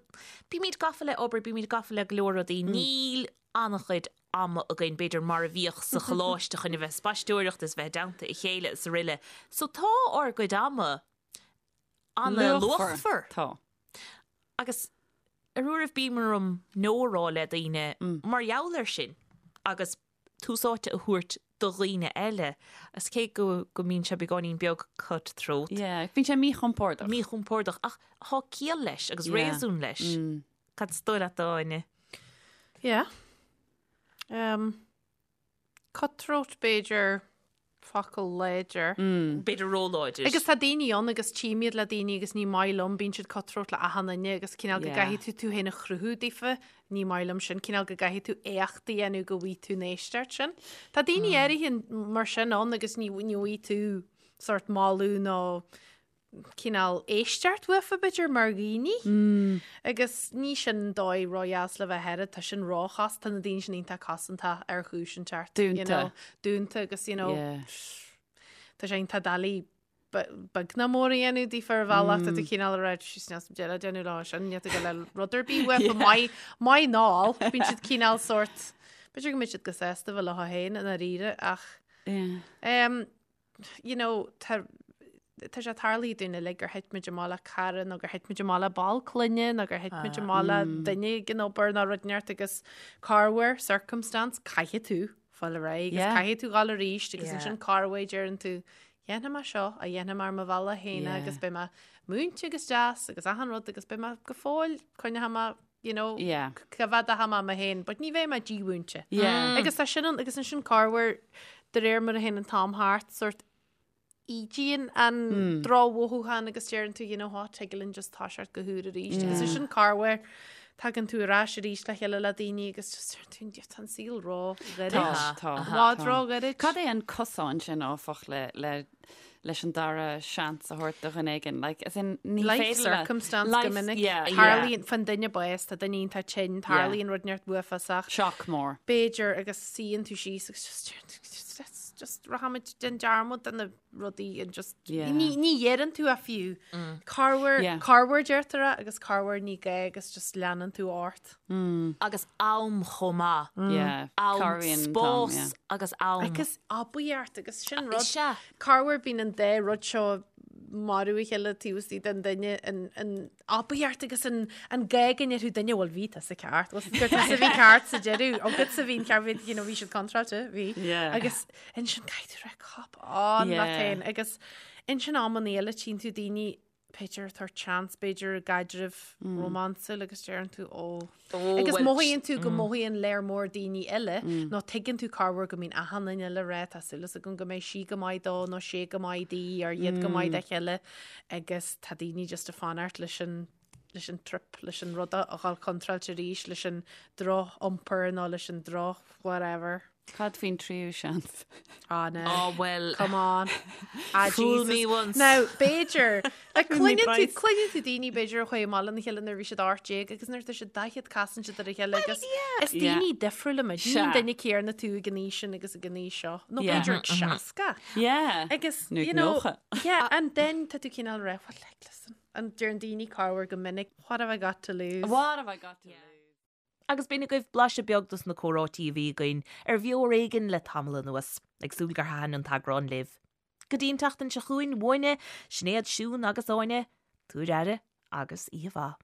bímid gafa le obair, bímid gafa le go leor rudaí, níl an-chuid ama againn, b'fhéidir, mar a bhíodh sa choláiste chun a bheith ag spaisteoireacht is bheith i dteannta a chéile is aroile. So tá ár gcuid ama an-luachmhar. Tá. Agus ar uairibh bíonn orm no a rá le daoine mar gheall air sin agus tús áite a thabhairt do dhaoine eile. Is cé go go mbíonn sé beagáinín beag cut-throat. Yeah, bíonn sé míchompordach. Míchompordach, ach tá ciall leis agus réasún leis. Cad is dóigh leat, Áine? Yeah. Um, cutthroat b'fhéidir focal láidir. B'fhéidir róláidir. Agus tá daoine ann agus tchím iad le daoine agus ní maith liom, bíonn siad cutthroat le achan duine agus cineál go gcaithfidh tú tú féin a chruthú daofa, ní maith liom sin, cineál go gcaithfidh tú éacht a dhéanamh go bhfaighidh tú an éisteacht sin. Tá daoine áirithe mar sin ann agus ní ní bhfaighidh tú sort moladh nó cineál éisteacht uafa b'fhéidir mar dhaoine. Agus ní sin dóigh ródheas le bheith air, tá sin róchos, tá na daoine sin iontach cosanta ar chúis inteacht. Dúnta. You know, dúnta agus you know, Yeah. tá sé iontach doiligh beag ná mór a dhéanamh daofa ar bhealach, tá tú cineál ag rá síos níl deireadh déanamh lá sin, níl tú go le rud ar bith uafa, maith, maith ná, bíonn siad cineál sort, b'fhéidir go mbeidh siad go sásta bheith leo féin i ndáiríre ach Yeah. um, you know, tá tá sé tarlaithe dúinn uilig gur thit muid amach le cara nó gur thit muid amach le ball clainne nó gur thit muid amach le duine ag an obair nó rud inteacht agus corruair circumstance caithfidh tú fáil ar aghaidh agus Yeah. caithfidh tú dhul arís agus Yeah. ansin corruair deireann tú dhéanfaidh mé seo a dhéanfaidh mé ar mo bhealach féin Yeah. agus beidh mé múinte agus deas agus achan rud agus beidh mé go fóill coinneoidh mé you know, Yeah. coimhéadfaidh mé mé féin, but ní bheidh mé dímhúinte. Yeah. Agus tá sin an, agus ansin corruair de réir mar a théann an t-am thart, sort ídíonn an drochmhothúchán agus deireann tú, you know what, tig linn just toiseacht go húr arís. Agus ansin corruair. tagann tú ar ais arís le chéile le daoine agus just deir tú, tá an saol ró-ghairid. Tá, tá. I bhfad ró-ghairid. Cad é an cosán sin, áfach, le, le, leis an dara seans a thabhairt do dhuine éigin? Like, as in, ní Life féidir le- circumstance Life- go minic. yeah, yeah. Tarlaíonn, faigheann duine bás, tá duine iontach tinn, tarlaíonn rud inteacht uafásach. Shock mór. B'fhéidir agus suíonn tú síos agus just deir tú, just, let's just rachaimid déan dearmad de na rudaí and just Yeah. ní ní dheireann tú a fiú. Corruair Yeah. corruair deirtear é agus corruair ní gá agus just leanann tú ort. Agus am chomh maith. Yeah. Am, Cabhraíonn an t-am, yeah. spás agus am. Agus aibíocht agus sin rud. Sea. Corruair bíonn an dá rud seo marú a chéile taobh istigh den duine an an aibíocht agus an an gá go ndéarfadh duine bhuel bhí tusa ceart bhuel gur tusa a bhí ceart sa deireadh agatsa a bhí an ceart bhí you know bhí siad contráilte bhí Yeah. agus ansin caithfidh tú rá cop on leat Yeah. féin agus ansin amanna eile tchíonn tú daoine b'fhéidir ag tabhairt seans b'fhéidir i gcaidreamh rómánsúil agus deireann tú ó agus bhuel, mothaíonn tú go mothaíonn léir mór daoine eile nó tuigeann tú corruair go mbíonn achan duine eile ag rá tá súil agam go mbeidh sí go maith dó nó sé go maith di or iad go maith dá chéile agus tá daoine just ag fanacht leis an leis an trip, leis an rud a dhul contráilte arís, leis an droch-iompar nó leis an droch whatever. Cad faoin tríú seans? Ah, no. Oh, well. Come on. Ah, Fool Jesus. me once. Now, b'fhéidir, like, Fool me cluineann tú, twice. cluineann tú daoine b'fhéidir a chuaigh amach lena chéile nuair a bhí siad 18 agus nuair atá siad 40 casann siad ar a chéile agus is Yeah. daoine difriúla muid. Ní Sea. an duine céanna tú ag an aois sin agus ag an aois seo. Nó Yeah. b'fhéidir ag 60. Yeah. Agus, Nó ag you know, 90. yeah, and then tá tú cineál rá, well, like, listen, and deireann daoine corruair go minic, what have I got to lose? What have I got to lose? Agus b'in agaibh blaiseadh beag dos na comhráití a bhí againn ar Bheo Ar Éigean le tamall anuas. Ag súil gur thaitin an t-eagrán libh. Go dtí an tseachtain seo chugainn, uainne, Sinéad, Siún agus Áine, tabhair aire agus oíche mhaith.